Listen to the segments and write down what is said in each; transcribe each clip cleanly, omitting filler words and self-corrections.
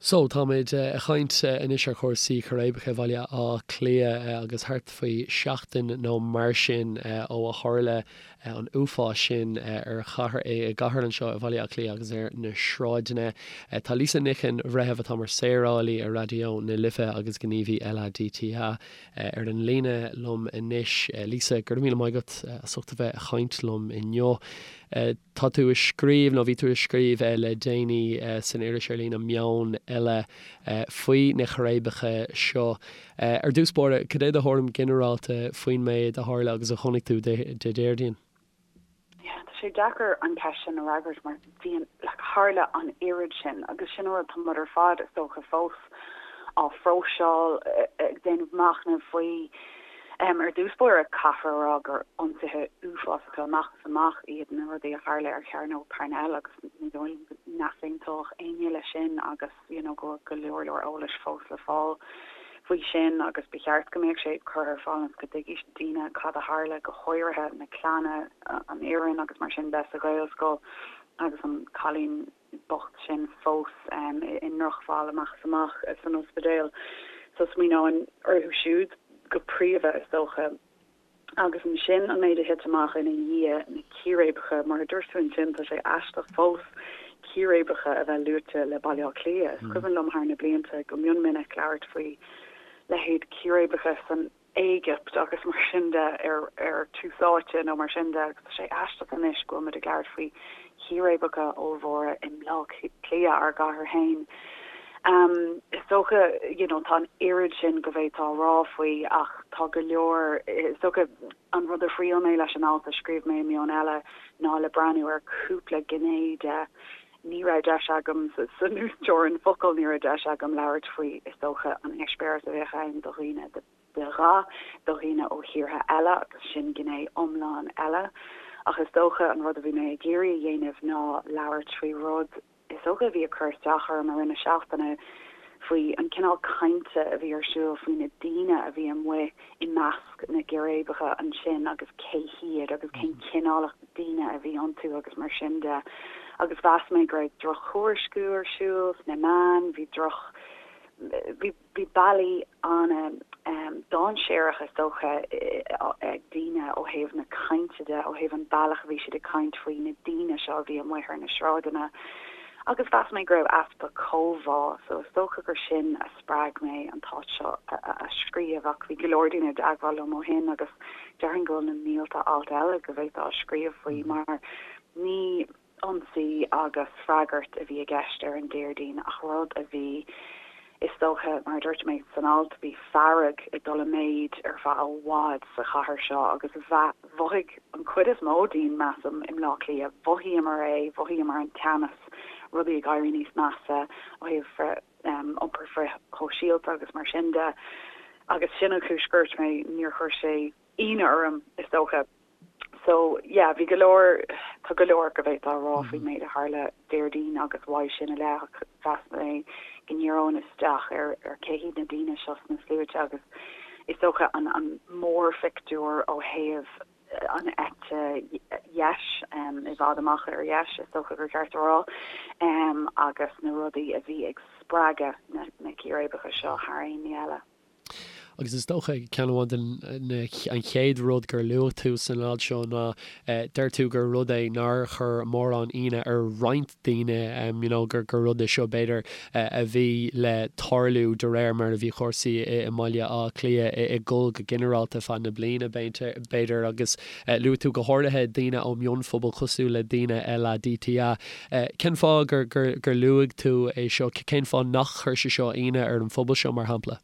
So, táimid ag caint anois ar chúrsaí círéibeacha i Bhaile Átha Cliath agus thart faoi sheachtain nó mar sin ó a tharla an uafás sin ar chathair, i gcathair anseo i Bhaile Átha Cliath agus ar na sráideanna. Tá Lisa Nic an Bhreithimh, atá mar saorálaí ar Raidió na Life agus gníomhaí LADTA, ar an líne liom anois. Lisa, go raibh míle maith agat as ucht a bheith ag caint liom inniu. Tá tú ag scríobh, nó bhí tú ag scríobh le déanaí san iris ar líne Meon Eile faoi na círéibeacha seo. Ar dtús báire, cad é do thuairim ghinearálta faoin méid a tharla agus a chonaic tú Dé Déardaoin? Yeah, tá sé deacair an cheist sin a fhreagairt mar bhí an, like, tharla an oiread sin agus sin an rud, tá muid ar fad, is dócha, fós á phróiseáil, ag déanamh machnaimh faoi. Ar dtús báire, caithfear a rá gur ionsaithe uafásacha amach is amach iad na rudaí a tharla ar Chearnóg Parnell agus ní dóigh liom go n-easaontódh éinne leis sin agus you know go bhfuil go leor leor eolais fós le fáil faoi sin agus ba cheart go mbeadh sé curtha ar fáil ionas go dtuigfidh daoine cad a tharla, go háirithe na clanna, an fhoireann agus mar sin de sa Ghaelscoil agus an cailín bocht sin fós i ndrochbhail amach is amach san ospidéal. So smaoineoinn orthu siúd go príomha, is dócha. Agus ansin an méid a thit amach ina dhiaidh, na círéibeacha, mar a dúirt tú ansin, tá sé aisteach fós círéibeacha a bheith luaite le Baile Átha Cliath. Is cuimhin liom thar na blianta go mion minic labhairt faoi leithéid círéibeacha san Éigipt agus mar sin de ar Tús Áite nó mar sin de agus tá sé aisteach anois go bhfuil muid ag labhairt faoi chíréibeacha ollmhóra i mBleá Cliath, ár gcathair féin. Is dócha, you know, tá an oiread sin go bhféadfá a rá faoi ach tá go leor, is dócha an rud a thriail mé leis an alt a scríobh mé i Meon Eile ná le breathnú ar cúpla gné de. Ní raibh deis agam, san uasteorainn focal, ní raibh deis agam labhairt faoi, is dócha, an eispéireas a bheadh ann do dhaoine de dhath, do dhaoine ó thíortha eile agus sin gné iomlán eile. Ach is dócha an rud a bhí mé ag iarraidh a dhéanamh ná labhairt faoi rud, is dócha, a bhí ag cur isteach orm i rith na seachtaine, faoi an cineál cainte a bhí ar siúl faoi na daoine a bhí amuigh i measc na gcíréibeacha ansin agus cé hiad agus cén cineál daoine a bhí iontu agus mar sin de. Agus mheas mé go raibh drochthuairisciú ar siúl sna meáin, bhí droch, bhí, bhí bealaí an-dainséarach is dócha ag daoine ó thaobh na cainte de, ó thaobh an bealach a bhí siad ag caint faoi na daoine seo a bhí amuigh ar na sráideanna. Agus mheas mé go raibh easpa comhbhá, so is dócha gur sin a spreag mé an t-alt seo a scríobh ach bhí go leor daoine i dteagmháil liom ó shin agus déarfainn go bhfuil na mílte alt eile go bhféadfá a scríobh faoi mar ní ionsaí agus freagairt a bhí i gceist ar an Déardaoin ach rud a bhí, is dócha, mar a dúirt mé san alt, bhí fearg ag dul i méid ar feadh i bhfad sa chathair seo agus mhothaigh an chuid is mó dínn, measaim, i mBleá Cliath, mhothaíomar é, mhothaíomar an teannas, rudaí ag éirí níos measa ó thaobh iompar frithshóisialta agus mar sin de agus sin an chúis gur dúirt mé, níor chuir sé ionadh orm, is dócha. So, yeah, bhí go leor, tá go leor go bhféadfá a rá faoin méid a tharla Déardaoin agus uaidh sin i leith ach mheas mé go ndíreoinn isteach ar ar cé hiad na daoine seo sna sluaite agus is dócha an an mórphictiúr ó thaobh an eite dheis, i bhfad amach ar dheis is dócha gur ceart a rá, agus na rudaí a bhí ag spreagadh na na círéibeacha seo thar aon ní eile. Agus is dócha, ceann amháin den, na, an chéad rud gur luaigh tú san alt seo ná, deir tú gur rud é nár chuir mórán ionadh ar roinnt daoine, you know, gur, gur rud é seo b'fhéidir a bhí le tarlú de réir mar a bhí cúrsaí i mBaile Átha Cliath ag dul go ginearálta feadh na bliana, b'fhéidir. Agus luaigh tú go háirithe daoine ó mhionphobal cosúil le daoine LADTA. Cén fáth gur, gur, gur luaigh tú é seo? Cén fáth nach chuir sé seo ionadh ar an phobal seo, mar shampla?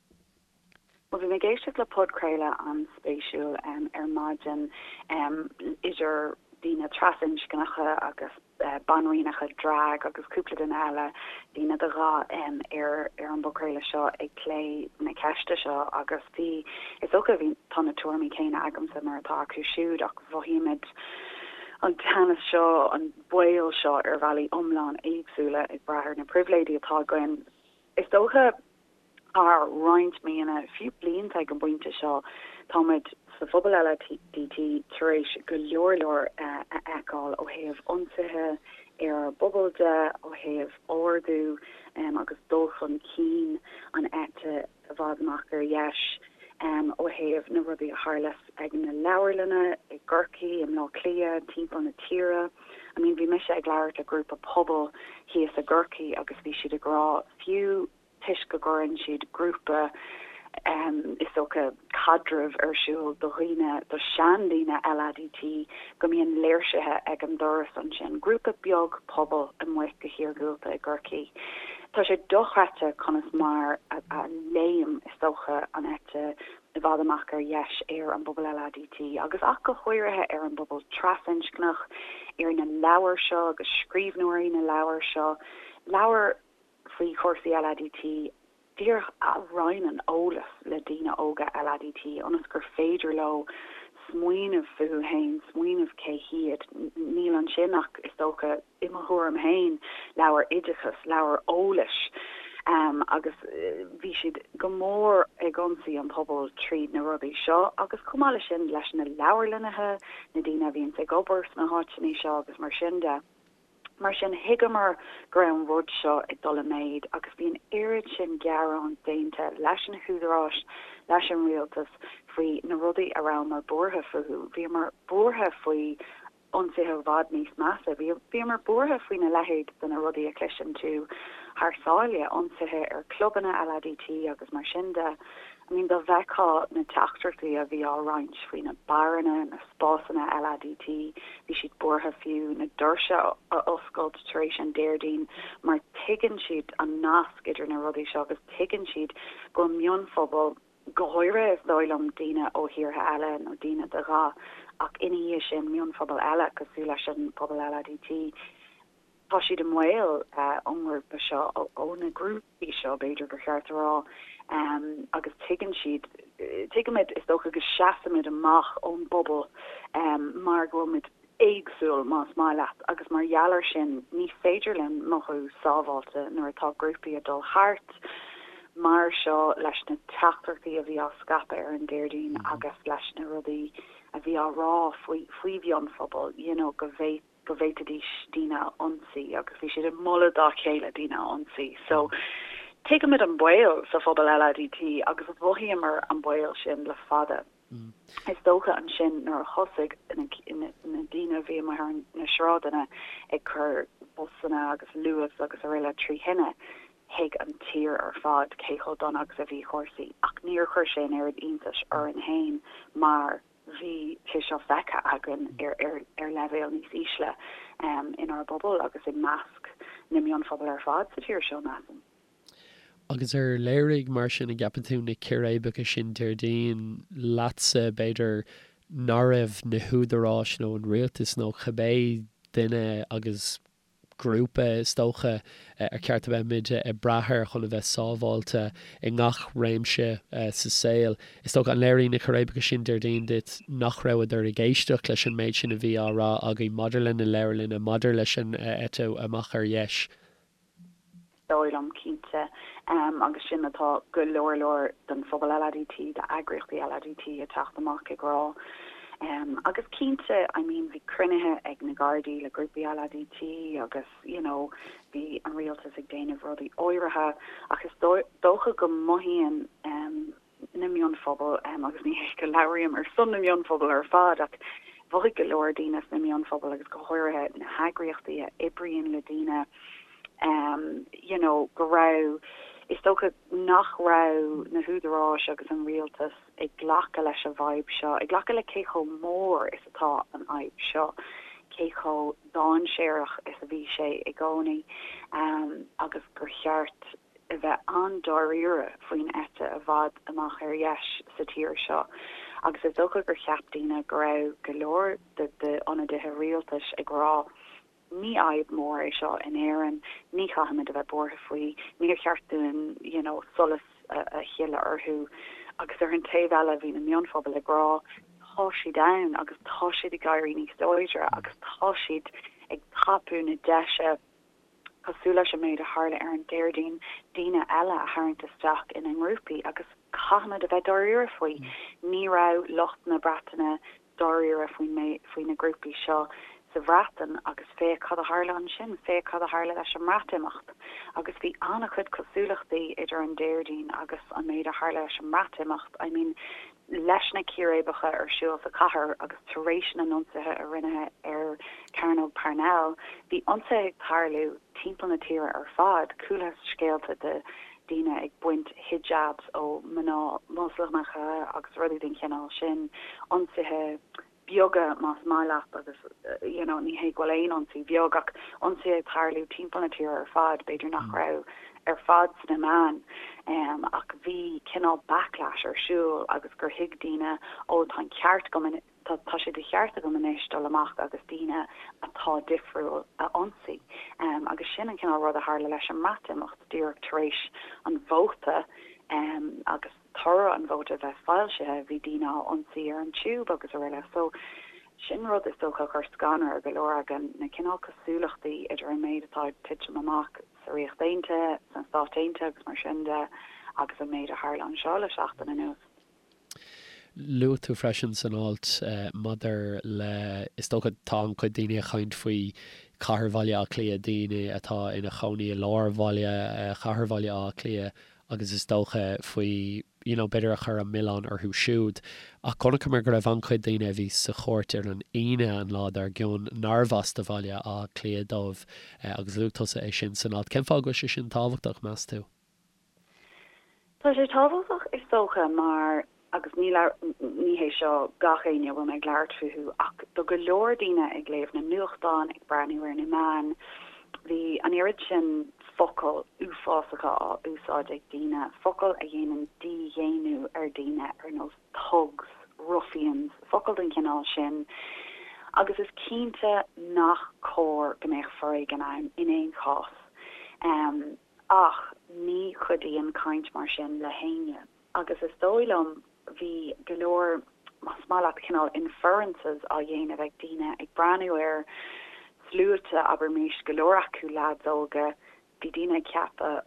Bhuel, bhí mé ag éisteacht le podchraoladh an-spéisiúil ar maidin idir daoine trasinscneacha agus banríonacha drag agus cúpla duine eile, daoine de dhath, ar an bpodchraoladh seo ag plé na ceiste seo agus bhí, is dócha, bhí, tá na tuairimí céanna agamsa mar atá acu siúd ach mhothaímid an teannas seo, an baol seo ar bhealaí iomlán éagsúla ag brath ar na pribhléidí atá againn. Is dócha thar roinnt míonna, fiú blianta ag an bpointe seo, táimid sa phobal LADT tar éis go leor leor a fheiceáil ó thaobh ionsaithe. ar ár bpobal de, ó thaobh ardú agus dul chun cinn an eite i bhfad amach ar dheis, ó thaobh na rudaí a tharla ag na leabharlanna i gCorcaigh, i mBleá Cliath, timpeall na tíre. I mean bhí mise ag labhairt le grúpa pobail thíos i gCorcaigh agus bhí siad ag rá fiú toisc go gcuireann siad grúpa is dócha caidrimh ar siúl do dhaoine, do seandaoine LADT, go mbíonn léirsithe ag an doras ansin, grúpa beag pobail amuigh go hiargúlta i gCorcaigh. Tá sé dochreidte conas mar a léim, is dócha, an eite i bhfad amach ar dheis ar an bpobal LADT agus ach go háirithe ar an bpobal trasinscneach, ar na leabhair seo agus scríbhneoirí na leabhar seo, leabhair faoi chúrsaí LADT díreach a roinneann eolas le daoine óga LADT ionas gur féidir leo smaoineamh fúthu féin, smaoineamh cé hiad. Níl ansin ach, is dócha, i mo thuairim féin, leabhar oideachais, leabhar eolais agus bhí siad go mór ag ionsaí an pobal tríd na rudaí seo agus chomh maith leis sin leis na leabharlannaithe, na daoine a bhíonns ag obair sna háiteanna seo agus mar sin de. Mar sin, thuigeamar go raibh an rud seo ag dul i méid agus bhí an oiread sin gearán déanta leis na húdaráis, leis an rialtas faoi na rudaí a rabhamar buartha fúthu. Bhíomar buartha faoi ionsaithe i bhfad níos measa. Bhíomar buartha faoina leithéid de na rudaí a chloiseann tú thar sáile, ionsaithe ar chlubanna LADT agus mar sin de. I mean dá bhfeictheá na teachtaireachtaí a bhí á roinnt faoi na beáranna, na spásanna LADT, bhí siad buartha fiú na doirse a oscailt tar éis an Déardaoin mar tuigeann siad an nasc idir na rudaí seo agus tuigeann siad go bhfuil mionphobail, go háirithe is dóigh liom daoine ó thíortha eile nó daoine de dhath ach ina dhiaidh sin mionphobail eile cosúil leis an bpobal LADT, tá siad i mbaol ón ngrúpa seo, ó na grúpaí seo b'fhéidir gur cheart a rá, agus tuigeann siad, tuigimid is dócha go seasaimid amach ón bpobal mar go bhfuilmid éagsúil más maith leat agus mar gheall air sin ní féidir linn mothú sábháilte nuair atá grúpaí ag dul thart mar seo leis na teachtaireachtaí a bhí á scaipeadh ar an Déardaoin agus leis na rudaí a bhí á rá faoi faoi mhionphobail you know go bhféad go bhféadfaidís daoine a ionsaí agus bhí siad ag moladh dá chéile daoine a ionsaí. So tuigimid an baol sa phobal LADT agus mhothaíomar an baol sin le fada. Is dócha ansin nuair a thosaigh na daoine a bhí amuigh ar na sráideanna ag cur busanna agus luas agus araile trí thine, thuig an tír ar fad cé chomh dona agus a bhí cúrsaí ach níor chuir sé an oiread iontais orainn féin mar bhí sé seo feicthe againn ar leibhéal níos ísle inár bpobal agus i measc na mionphobal ar fad sa tír seo, measaim. Agus ar léirigh, mar sin, an gceapann tú, na círéibeacha sin Déardaoin leatsa, b'fhéidir, nach raibh na húdaráis nó an rialtas nó cibé duine agus grúpa, is dócha, ar cheart a bheith muid ag brath air chun a bheith sábháilte i ngach réimse sa saol. Is dócha, an léirigh na círéibeacha sin Déardaoin duit nach rabhadar ag éisteacht leis an méid sin a bhí á rá againn maidir le na leabharlanna, maidir leis an eite amach ar dheis? dóigh liom, cinnte. Agus sin atá go leor leor den phobal LADT, d'eagraíochtaí LADT ag teacht amach ag rá. Agus cinnte, I mean, bhí cruinnithe ag na Gardaí le grúpaí LADT agus, you know, bhí an rialtas ag déanamh rudaí áirithe ach is dócha go mothaíonn na mionphobail, agus ní hé go labhraím ar son na mionphobal ar fad, ach mhothaigh go leor daoine sna mionphobail agus go háirithe na heagraíochtaí a oibríonn le daoine, you know, go raibh, is dócha nach raibh na húdaráis agus an rialtas ag glacadh leis an bhfadhb seo, ag glacadh le cé chomh mór is atá an fhadhb seo, cé chomh dainséarach is a bhí sé i gcónaí agus gur cheart a bheith an-dáiríre faoin eite i bhfad amach ar dheis sa tír seo agus is dócha gur cheap daoine go raibh go leor d'ionadaithe rialtais ag rá ní fhadhb mhór é seo in Éirinn, ní chaithfimid a bheith buartha faoi, níor cheart dúinn you know solas a shileadh orthu agus ar an taobh eile bhí na mionphobail ag rá tá siad ann agus tá siad ag éirí níos láidre agus tá siad ag tapú na deise cosúil leis an méid a tharla ar an Déardaoin, daoine eile a tharraingt isteach ina ngrúpaí agus caithfimid a bheith dáiríre faoi. Ní raibh lucht na Breataine dáiríre faoin, faoi na grúpaí seo. sa Bhreatain agus féach cad a tharla ansin, féach cad a tharla leis an mBreatimeacht. Agus bhí an-chuid cosúlachtaí idir an Déardaoin agus an méid a tharla leis an mBreatimeacht. I mean, leis na círéibeacha ar siúl sa chathair agus tar éis na n-ionsaithe a rinneadh ar Chearnóg Parnell, bhí ionsaithe ag tarlú timpeall na tíre ar fad. Chualathas scéalta de daoine ag baint hijabs ó mná Moslamacha agus rudaí den chineál sin, ionsaithe beaga más maith leat agus you know ní hé go bhfuil aon ionsaí beag ach ionsaithe ag tarlú timpeall na tíre ar fad, b'fhéidir nach raibh ar fad sna meáin ach bhí cineál backlash ar siúl agus gur thuig daoine ó tá an ceart agam tá tá sé de cheart agam anois dul amach agus daoine atá difriúil a ionsaí agus sin an cineál rud a tharla leis an mBreatimeacht díreach tar éis an vóta agus toradh an vóta a bheith foilsithe, bhí daoine á ionsaí ar an Tube agus araile. So, sin rud is dócha a chuir scanradh ar go leor againn, na cineál cosúlachtaí idir an méid atá ag titim amach sa Ríocht Aontaithe, sna Stáit Aontaithe agus mar sin de, agus an méid a tharla anseo le seachtain anuas. Luaigh tú freisin san alt maidir le, is dócha tá an-chuid daoine ag caint faoi chathair Bhaile Átha Cliath, daoine atá ina chónaí i lár bhaile, chathair Bhaile Átha Cliath, agus is dócha faoi, you know, b'fhéidir a chur an milleán orthu siúd. Ach chonaiceamar go raibh an-chuid daoine a bhí sa chúirt ar an Aoine, an lá dár gcionn, nárbh as do Bhaile Átha Cliath dóibh, agus luaigh tusa é sin san alt. Cén fáth go bhfuil sé sin tábhachtach, meas tú? Tá sé tábhachtach, is dócha, mar agus ní ní hé seo gach éinne a bhfuil mé ag labhairt fúthu, ach do go leor daoine ag léamh na nuachtán, ag breathnú ar na meáin, bhí an oiread sin focail uafásacha á úsáid ag daoine, focail a dhéanann dídhaonnú ar daoine ar nós thugs, ruffians, focail den chineál sin, agus is cinnte nach cóir go mbeadh foréigean ann in aon chás. Ach ní chuidíonn caint mar sin le héinne. Agus is dóigh liom, bhí go leor, más maith leat, cineál inferences á dhéanamh ag daoine ag breathnú ar sluaite, abraimis, go leor acu leaids óga, bhí daoine ag ceapadh,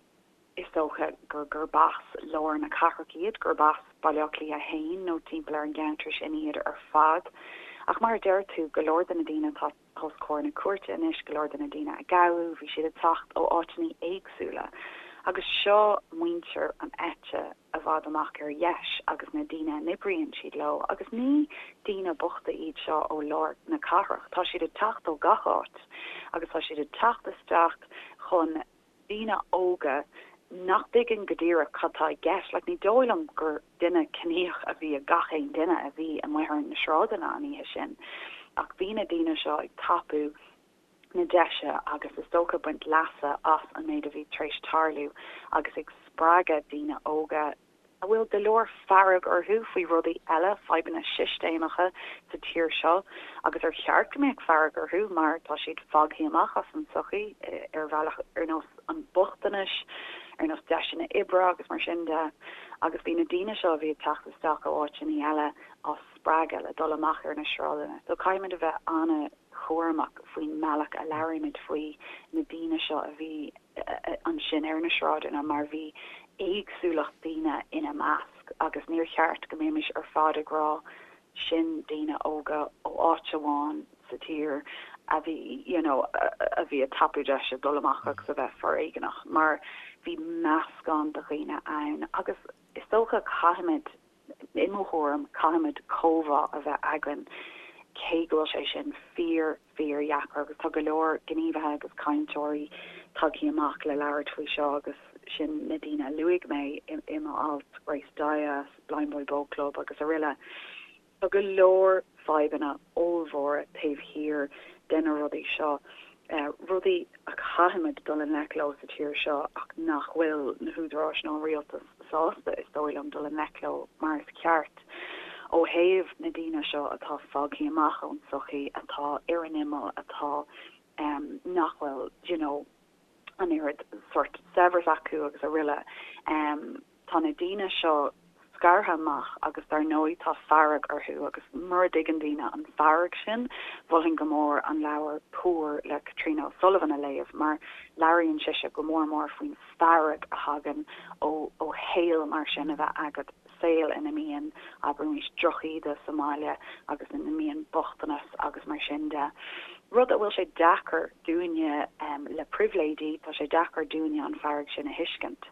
is dócha, gur gurb as lár na cathrach iad, gurb as Baile Átha Cliath 1 nó timpeall ar an gceantar sin iad ar fad. Ach mar a deir tú, go leor de na daoine atá. os comhair na cúirte anois, go leor de na daoine a gabhadh, bhí siad ag teacht ó áiteanna éagsúla. Agus seo muintir an eite i bhfad amach ar dheis agus na daoine a n-oibríonn siad leo, agus ní daoine bochta iad seo ó lár na cathrach, tá siad ag teacht ó gach áit agus tá siad ag teacht isteach chun daoine óga nach dtuigeann go díreach cad tá i gceist. Like, ní dóigh liom gur duine ciníoch a bhí i gach aon duine a bhí amuigh ar na sráideanna an oíche sin. Ach bhí na daoine seo ag tapú na deise agus is dócha baint leasa as an méid a bhí tar éis tarlú agus ag spreagadh daoine óga a bhfuil go leor fearg orthu faoi rudaí eile, fadhbanna sistéamacha sa tír seo agus ar cheart go mbeadh fearg orthu mar tá siad fágtha amach as an tsochaí ar bhealach ar nós an bochtanais, ar nós deiseanna oibre agus mar sin de. Agus bhí na daoine seo a bhí ag teacht isteach ó áiteanna eile á spreagadh le dul amach ar na sráideanna. So caithfimid a bheith an-chúramach faoin mbealach a labhraímid faoi na daoine seo a bhí ansin ar na sráideanna mar bhí éagsúlacht daoine ina measc agus níor cheart go mbeimis ar fad ag rá sin daoine óga ó áit amháin sa tír a bhí you know a bhí ag tapú deise dul amach agus a bheith foréigeanach mar bhí meascán de dhaoine ann agus is dócha caithfimid I mo thuairim, caithfimid comhbhá a bheith againn, cé go bhfuil sé sin fíor, fíor dheacair agus tá go leor gníomhaithe agus cainteoirí tagtha amach le labhairt faoi seo agus sin na daoine a luaigh mé i mo alt, Grace Dyas, Blindboy Boatclub agus aroile. Tá go leor fadhbanna ollmhóra taobh thiar de na rudaí seo, rudaí a chaithfimid dul i ngleic leo sa tír seo ach nach bhfuil na húdaráis nó an rialtas sásta, is dóigh liom, dul i ngleic leo mar is ceart. Ó thaobh na daoine seo atá fágtha amach ón tsochaí, atá ar an imeall, atá, nach bhfuil, do you know, an oiread sórt saibhreas acu agus aroile. Tá na daoine seo scartha amach agus dar ndóigh tá fearg orthu agus mura dtuigeann daoine an fearg sin, mholfainn go mór an leabhar Poor le Caitríona O'Sullivan a léamh mar labhraíonn sise go mór mór faoin fearg a thagann ó ó shaol mar sin a bheith agat, saol ina mbíonn, abraimis, drochíde sa mbaile agus ina mbíonn bochtanas agus mar sin de. Rud a bhfuil sé deacair dúinne le pribhléidí, tá sé deacair dúinne an fearg sin a thuiscint.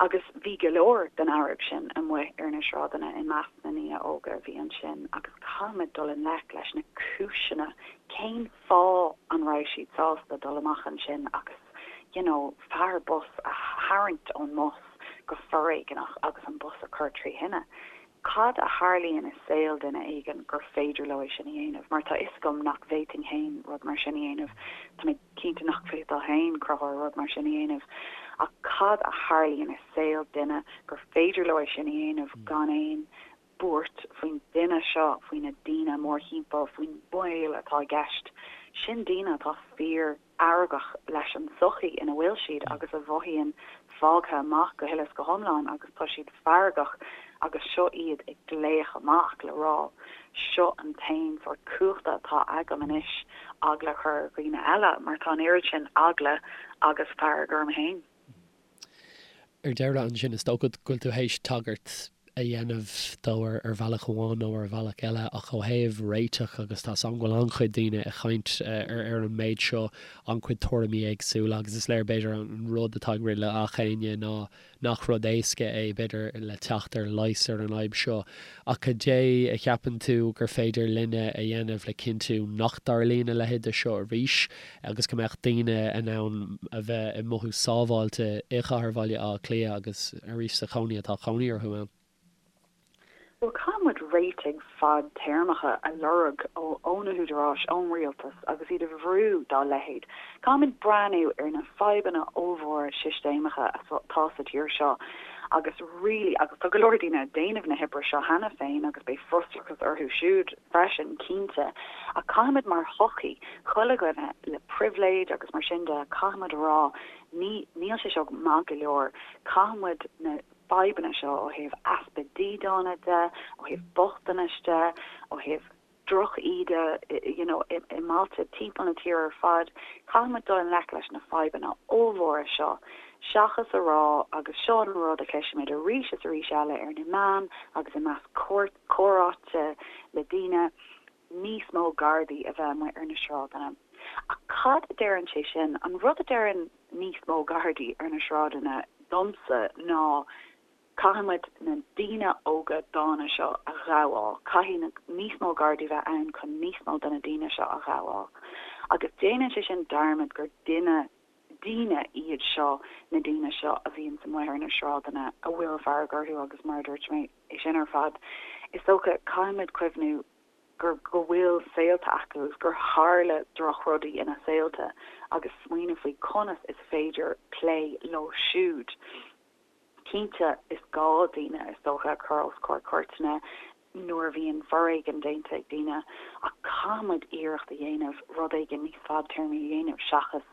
Agus bhí go leor den fhearg sin amuigh ar na sráideanna i measc na ndaoine óga a bhí ansin agus caithfimid dul i ngleic leis na cúiseanna, cén fáth an raibh siad sásta dul amach ansin agus you know fear bus a tharraingt ón mbus go foréigeanach agus an bus a chur trí thine. Cad a tharlaíonn i saol duine éigin gur féidir leo é sin a dhéanamh? Mar tá 'fhios agam nach bhféadfainn féin rud mar sin a dhéanamh. Tá mé cinnte nach bhféadfá féin, Conchúr, rud mar sin a dhéanamh. Ach cad a tharlaíonn i saol duine gur féidir leo é sin a dhéanamh gan aon buairt faoin duine seo, faoi na daoine mórthimpeall, faoin mbaol atá i gceist? Sin daoine atá fíor. fheargach leis an tsochaí ina bhfuil siad agus a mhothaíonn fágtha amach go huile is go hiomlán agus tá siad feargach agus seo iad ag glaoch amach le rá seo an t-aon sórt cumhachta atá agam anois eagla a chur ar dhaoine eile mar tá an oiread sin eagla agus fearg orm féin. Ar deireadh ansin, is dócha go bhfuil tú théis tagairt a dhéanamh dó ar bhealach amháin nó ar bhealach eile, ach ó thaobh réiteach, agus tá 's agam go bhfuil an-chuid daoine ag caint ar an méid seo, an-chuid tuairimí éagsúla, agus is léir b'fhéidir an rud atá ag rith le gach éinne ná nach rud éasca é, b'fhéidir, le teacht ar leigheas ar an fhadhb seo. Ach cad é a cheapann tú gur féidir linne a dhéanamh le cinntiú nach dtarlaíonn a leithéid de seo arís agus go mbeadh daoine in ann a bheith ag mothú sábháilte i gcathair Bhaile Átha Cliath agus arís sa chónaí atá cónaí orthu ann? Bhuel, caithfidh muid réitigh fadtéarmacha a lorg ó na húdaráis, ón rialtas agus iad a bhrú dá leithéid. Caithfidh muid breathnú ar na fadhbanna ollmhóra sistéamacha atá sa tír seo agus really, agus tá go leor daoine ag déanamh na hoibre seo cheana féin agus beidh frustrachas orthu siúd freisin, cinnte, ach caithfidh muid mar shochaí, chuile dhuine le pribhléid agus mar sin de, caithfidh muid a rá, ní, níl sé seo maith go leor, caithfidh muid na. fadhbanna seo ó thaobh easpa dídeana de, ó thaobh bochtanais de, ó thaobh droch-íde you know i mbailte timpeall na tíre ar fad. Caithfidh muid dul i ngleic leis na fadhbanna ollmhóra seo seachas a rá, agus seo an rud a chloisimid arís is arís eile ar na meáin agus i measc comhráite le daoine, níos mó Gardaí a bheith amuigh ar na sráideanna. Ach cad a deireann sé sin? An rud a deireann níos mó Gardaí ar na sráideanna domsa ná caithfidh muid na daoine óga dána seo a ghabháil, caithfidh níos mó Gardaí bheith ann chun níos mó de na daoine seo a ghabháil. Agus déanann sé sin dearmad gur duine, daoine iad seo, na daoine seo a bhíonns amuigh ar na sráideanna a bhfuil fearg orthu agus mar a dúirt mé, é sin ar fad, is dócha, caithfidh muid cuimhniú gur, go bhfuil saolta acu agus gur tharla drochrudaí ina saolta agus smaoineamh faoi conas is féidir plé leo siúd. Cinnte, is gá daoine, is dócha, a chur os comhair cúirteanna nuair a bhíonn foréigean déanta ag daoine ach caithfidh muid iarracht a dhéanamh rud éigin níos fadtéarmaí a dhéanamh seachas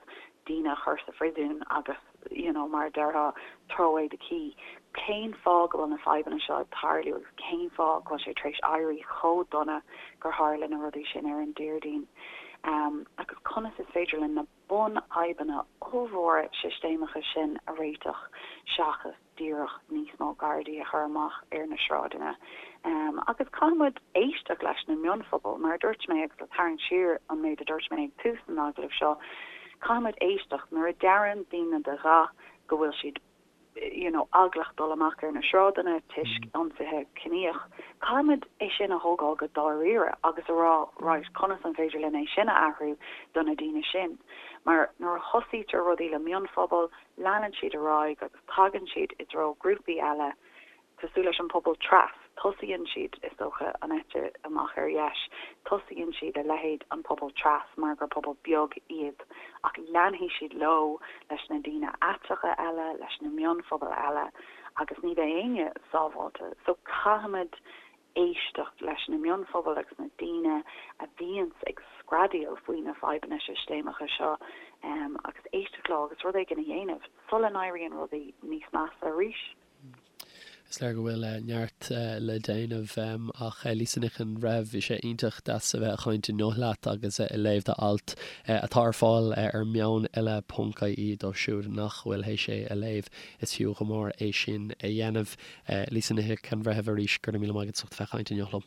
daoine a chur sa phriosún agus you know mar a déarfá throw away the key. Cén fáth go bhfuil na fadhbanna seo ag tarlú agus cén fáth go bhfuil sé tar éis éirí chomh dona gur tharla na rudaí sin ar an Déardaoin? Um, agus conas is féidir linn na bunfhadhbanna ollmhóra sistéamacha sin a réiteach seachas díreach níos mó Gardaí a chur amach ar na sráideanna. Agus caithfidh muid éisteacht leis na mionphobail, mar a dúirt mé, agus le tarraingt siar an méid a dúirt mé ag tús an agallaimh seo, caithfidh muid éisteacht nuair a deireann daoine de dhath go bhfuil siad you know eaglach dul amach ar na sráideanna toisc ionsaithe ciníoch, caithfidh muid é sin a thógáil go dáiríre agus a rá right, conas an féidir linn é sin a athrú do na daoine sin? Mar nuair a thosaítear rudaí le mionphobail, leanann siad ar aghaidh agus tagann siad i dtreo grúpaí eile, cosúil leis an pobal tras, tosaíonn siad, is dócha, an eite amach ar dheis, tosaíonn siad le leithéid an pobal tras mar gur pobal beag iad, ach leanfaidh siad leo leis na daoine aiteacha eile, leis na mionphobail eile agus ní bheidh éinne sábháilte. So caithfimid éisteacht leis na mionphobail agus na daoine a bhíonns ag screadaíl faoi na fadhbanna sistéamacha seo agus éisteacht leo agus rud éigin a dhéanamh sula n-éiríonn rudaí níos measa arís. Is léir go bhfuil neart le déanamh ach Lisa Nic an Bhreithimh, bhí sé iontach deas a bheith ag caint inniu leat agus ag léamh d'alt atá ar fáil ar meoneile ponc ie dóibh siúd nach bhfuil théis é a léamh. Is fiú go mór é sin a dhéanamh. Lisa Nic an Bhreithimh arís, go raibh míle maith agat as ucht a bheith ag caint inniu liom.